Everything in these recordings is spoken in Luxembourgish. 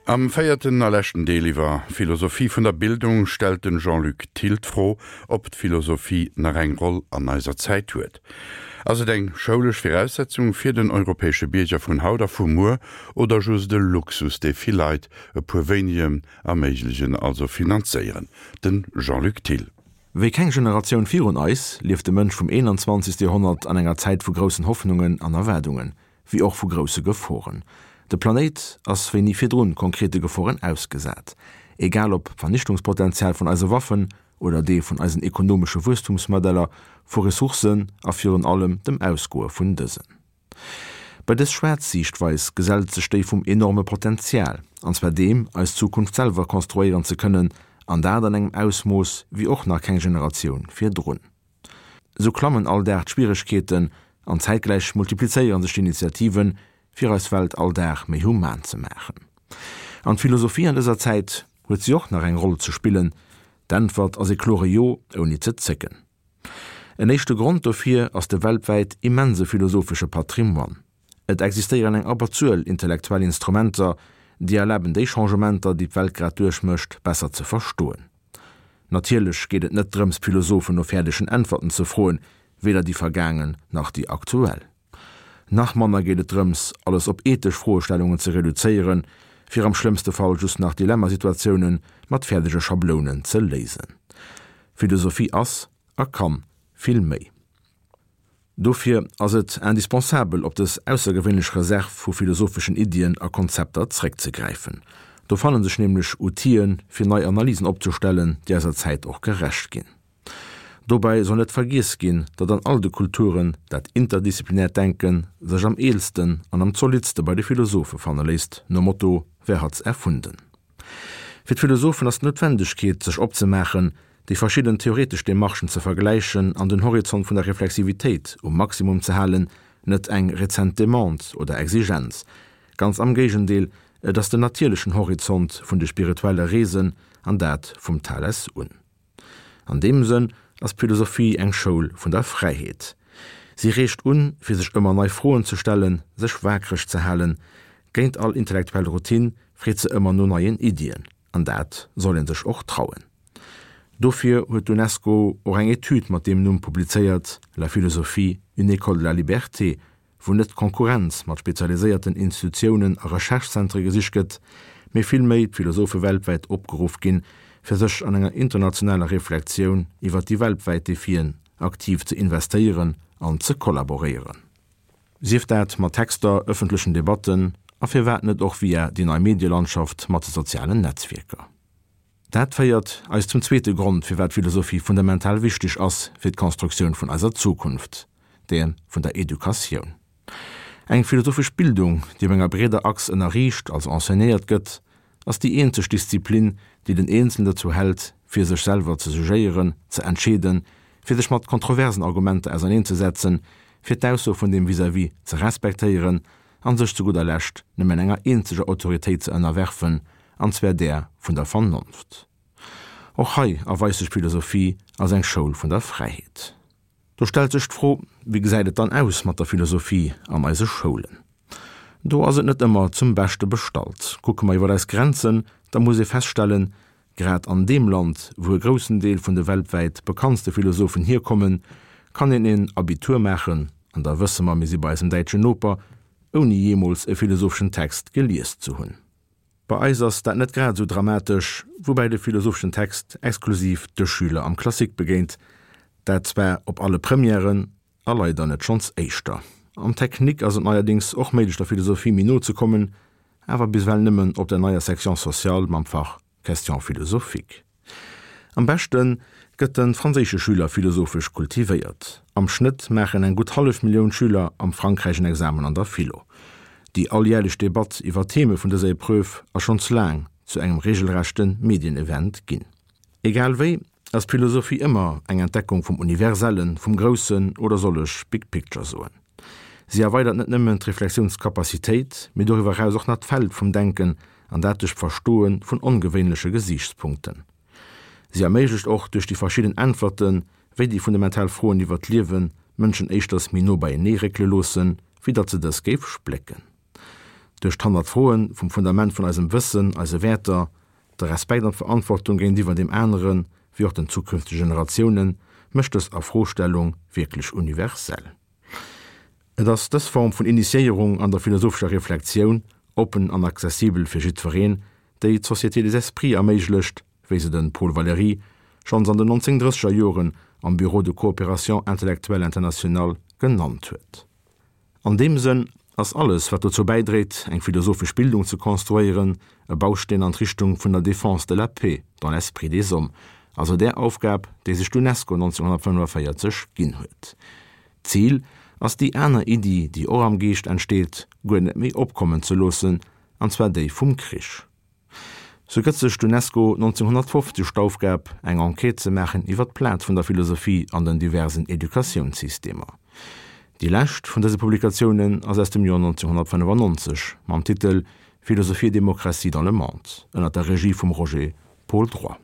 Am véierten a leschten Deel iwwer Philosophie vun der Bildung stellt den Jean-Luc Thill d'Fro, ob d'Philosophie nach eng Roll an eiser Zäit huet. Ass et eng schoulesch Viraussetzung fir den europäesche Bierger vun haut a vu muer oder just e Luxus, dee vill Leit, e puer wéinegen, erméiglegen, also finanzéieren? Den Jean-Luc Thill. Wéi keng Generatioun virun eis, lieft de Mënsch vum 21. Joerhonnert an enger Zäit vu groussen Hoffnungen an Erwaardungen. wéi och vu grousse Geforen. De Planéit ass wéi ni virdrun konkrete Geforen ausgesat. Egal ob d'Vernichtungspotenzial vun eise Waffen oder dee vun eisen ekonomesche Wuesstumsmodeller, vu Ressourcen a virun allem dem Ausgoe vun dësen. Bei dës schwaarz Siichtweis gesellt sech déi vum enorme Potenzial, an zwar deem, eis Zukunft selwer konstruéieren ze kënnen, an dat an engem Ausmooss wéi och nach keng Generatioun virdrun. Esou klammen all Dag d'Schwieregkeeten an zäitgläich multiplizéiere sech d'Initiativen, fir eis Welt all Dag méi human ze maachen. An d'Philosophie an dëser Zäit, huet si och nach eng Roll ze spillen? D'Äntwert ass ee klore Jo, ouni ze zécken. En éischte Grond dofir ass de weltwäit immense philosophesche Patrimoine. Et existéieren eng Abberzuel intellektuell Instrumenter, déi erlaben déi Changementer, déi d'Welt grad duerchmécht, besser ze verstoen. Natierlech geet et net drëms d'Philosophen no fäerdegen Äntwerten ze froen, weder déi vergaangen nach déi aktuell. Nach manner geet et drëms, alles op ethesch Froestellungen ze reduzéieren, fir am schlëmmste Fall just nach Dilemmasituatioune mat fäerdege Schablounen ze léisen. Philosophie ass a kann vill méi. Dofir ass et indispensabel, op dës aussergewéinlech Reserv vu philosopheschen Iddien a Konzepter zréckzegräifen. Do fanne sech nämlech Outile fir nei Analysen opzestellen, déi eiser Zäit och gerecht ginn. Dobäi soll net vergiess ginn, datt an all de Kulturen dat interdisziplinäert Denke sech am eelsten an am zolidste bei de Philosophe fanne léisst, nom Motto Wer hat's erfunden? Fir d'Philosophen ass d'Noutwendegkeet, sech opzemaachen, déi verschidden theoretesch Demarchen ze vergläichen an den Horizont vun der Reflexivitéit um Maximum ze halen, net eng rezent Demande oder Exigenz. Ganz am Géigendeel, et ass den natierlechen Horizont vun de spirituelle Reesen, an dat vum Thales un. An deem Sënn ass d'Philosophie eng Schoul vun der Fräiheet. Si reegt un, fir sech ëmmer nei Froen ze stellen, sech waakreg ze halen. Géint all intellektuell Routine freet se ëmmer no neien Iddien. An dat soll ee sech och trauen. Dofir huet d'UNESCO och eng Etüd mat deem Numm publizéiert, La philosophie, une école de la liberté, wou net d'Konkurrenz mat spezialiséierten Institutiounen a Recherche-Zentre gesicht gëtt, mee villméi d'Philosophe weltwäit opgeruff ginn, fir sech an enger internationaler Reflektioun iwwer déi weltwäit Defien aktiv ze investéieren an ze kollaboréieren. Sief dat mat Texter, ëffentlechen Debatten a firwat net och via déi nei Medielandschaft mat de sozialen Netzwierker. Dat féiert eis zum zweete Grond, firwat Philosophie fundamental wichteg ass fir d'Konstruktioun vun eiser Zukunft, där vun der Educatioun. Eng philosophesch Bildung, déi op enger breeder Achs ënnerriicht, also enseignéiert gëtt, ass déi eenzeg Disziplin, déi den Eenzelen dozou hält, fir sech selwer ze jugéieren, ze entscheeden, fir sech mat kontroversen Argumenter auserneenzesetzen, fir d'Ausso vun dem Vis-à-vis ze respektéieren an sech zu gudder Lescht nëmmen enger eenzeger Autoritéit ze ënnerwerfen, an zwar där vun der Vernonft. Och hei erweist sech d'Philosophie als eng Schoul vun der Fräiheet. Do stellt sech d'Fro, Wéi gesäit et dann aus mat der Philosophie an eise Schoulen? Do ass et net ëmmer zum Beschte bestallt. Kucke mer iwwer eis Grenzen, da muss ee feststellen, Grad an deem Land, wou e groussen Deel vun de weltwäit bekanntste Philosophen hierkommen, kann een en Abitur maachen, an da wësse mer, mir si bei eisem däitschen Noper, ouni jeemools e philosopheschen Text gelies ze hunn. Bei eis ass dat net grad esou dramatesch, woubäi de philosopheschen Text exklusiv de Schüler am Classique begéint, dat zwar op alle Premièren, A leider net schonns éischter. Am Technique ass et neierdéngs och méiglech der Philosophie méi no ze kommen, awer bis ewell nëmmen op der neier Section sociale mam Fach Questions philosophiques. Am beschte gëtt de franséische Schüler philosophesch kultivéiert. Am Schnëtt maachen eng gutt hallef Millioun Schüler am Frankräich en Examen an der Philo. Déi alljärlech Debatt iwwer d'Theme vun dëser Epreuve ass schonns laang zu engem regelrechte Medienevent ginn. Egal wéi, ass d'Philosophie ëmmer eng Entdeckung vum Universellen, vum Groussen oder soll ech Big Picture soen. Si erweidert net nëmmen d'Reflexiounscapacitéit, mee doriwwer eraus och nach d'Feld vum Denken an dat duerch d'Verstoe vun ongewéinleche Gesiichtspunkten. Si erméiglecht och duerch déi verschidden Äntwerten, wéi déi fundamental Froen iwwer d'Liewen d'Mënschen éischters méi no beienee réckele loossen, wéi datt se dës géif splécken. Duerch d'Hannertfroe vum Fundament vun eisem Wëssen, eise Wäerter, de Respekt an d'Verantwortung géintiwwer deem anere wéi och den zukünftege Generatiounen, mécht dës Afrostellung wierklech universell. Et ass dës Form vun Initiéierung an der philosophescher Reflektioun, oppen an accessibel fir jiddwereen, déi d'Société des Esprits erméiglecht, wéi se de Paul Valéry schonns an den 1930er Joren am Bureau de coopération intellectuelle internationale genannt huet. An deem Sënn ass alles, wat dozou bäidréit, eng philosophesch Bildung ze konstruéieren, e Bausteen an d'Richtung vun der Défense de la paix dans l'esprit des hommes, also där Aufgab, déi sech d'UNESCO 1945 ginn huet. D'Zil ass, déi aner Iddi, déi och am Geescht entsteet, guer net méi opkommen ze loossen, an zwar déi vum Krich. Sou gëtt sech d'UNESCO 1950 d'Aufgab, eng Enquête ze maachen iwwer d'Plaz vun der Philosophie an den diversen Educatiounssystemer. Déi lescht vun dëse Publikatiounen ass aus dem Joer 1995 mam Titel Philosophie et démocratie dans le monde ënner der Regie vum Roger Paul Droit.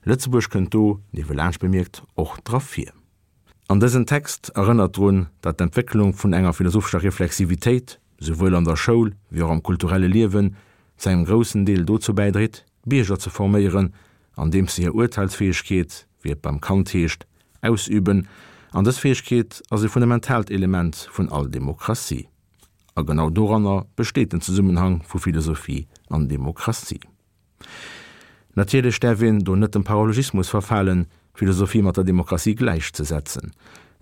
Lëtzebuerg kënnt do, niewelaanscht bemierkt, och dra vir. An dësen Text erënnert drun, datt d'Entwécklung vun enger philosophescher Reflexivitéit, souwuel an der Schoul wéi och am kulturelle Liewen, zu engem groussen Deel dozou bäidréit, Bierger ze forméieren, andeems se hir Urteilsfäegkeet, wéi et beim Kant heescht, ausüben. An dës Fäegkeet ass e fundamentaalt Element vun all Demokratie. A genau doranner besteet den Zesummenhang vu Philosophie an Demokratie. Natierlech däerf een do net dem Paralogismus verfalen, d'Philosophie mat der Demokratie gläichzesetzen.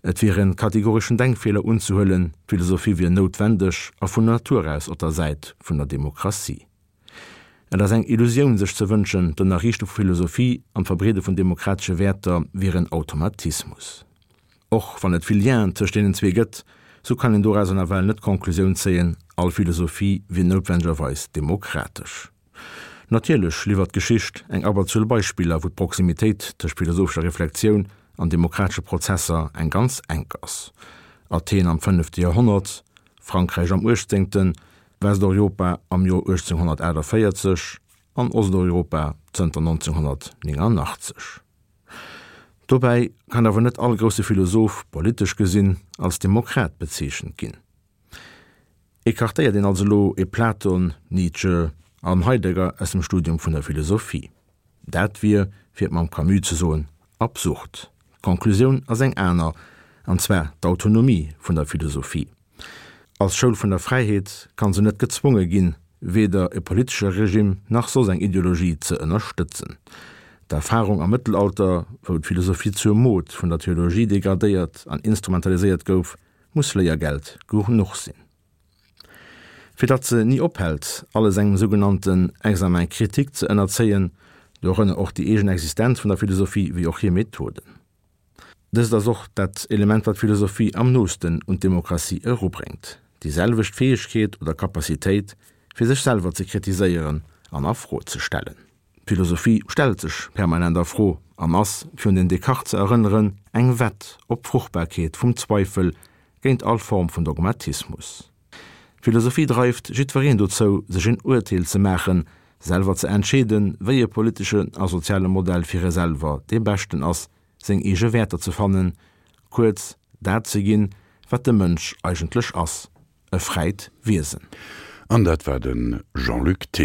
Et wier en kategoreschen Denkfeeler unzehuelen, d'Philosophie wier noutwendeg a vun Natur aus op der Säit vun der Demokratie. Et ass eng Illusioun sech ze wënschen, d'Ënnerriichte vu Philosophie an d'Verbreede vun demokratesche Wäerter wier en Automatismus. Och wann et vill Lienen tëscht deenen zwee gëtt, sou kann een dorauser nawell net d'Konklusioun zéien, all Philosophie wier noutwendegerweis demokratesch. Natierlech liwwert d'Geschicht eng Abberzuel Beispiller, wou d'Proximitéit tëscht philosophescher Reflektioun an demokratesche Prozesser eng ganz enk ass, Athen am fënnefte Joerhonnert, Frankräich am uechtzéngten, Westeuropa am Joer 1848 an Osteuropa zënter 1989. Dobäi kann awer net all grousse Philosoph, politesch gesinn, als Demokrat bezeechent ginn. Ecartéiert een also elo e Platon, Nietzsche an Heidegger aus dem Studium vun der Philosophie? Dat wier, fir et mam Camus ze soen, absurd. D'Conclusioun ass eng aner, an zwar d'Autonomie vun der Philosophie. Als Schoul vun der Fräiheet kann se net gezwonge ginn, weder e politesche Regime nach soss eng Ideologie ze ënnerstëtzen. D'Erfarung am Mëttelalter, wou d'Philosophie zur Mod vun der Theologie degradéiert an instrumentaliséiert gouf, muss Léiergeld genuch sinn. Fir datt se ni ophält, alles engem sougenannten Examen critique ze ënnerzéien, dorënner och déi eegen Existenz vun der Philosophie wéi och hir Methoden. Dëst ass och dat Element, wat d'Philosophie am noosten un d'Demokratie erubréngt, déi selwecht Fäegkeet oder Capacitéit, fir sech selwer ze kritiséieren an a Fro ze stellen. D'Philosophie stellt sech permanent a Fro an ass, fir un den Descartes ze erënneren, eng Wett op d'Fruchtbarkeet vum Zweifel géint all Form vun Dogmatismus. D'Philosophie dreift jiddwereen dozou, sech en Urteel ze maachen, selwer ze entscheeden, wéi e politeschen a soziale Modell fir e selwer dee beschten ass, seng eege Wäerter ze fannen, kuerz, dat ze ginn, wat de Mënsch eigentlech ass, e fräit Wiesen. An dat war de Jean-Luc Thill.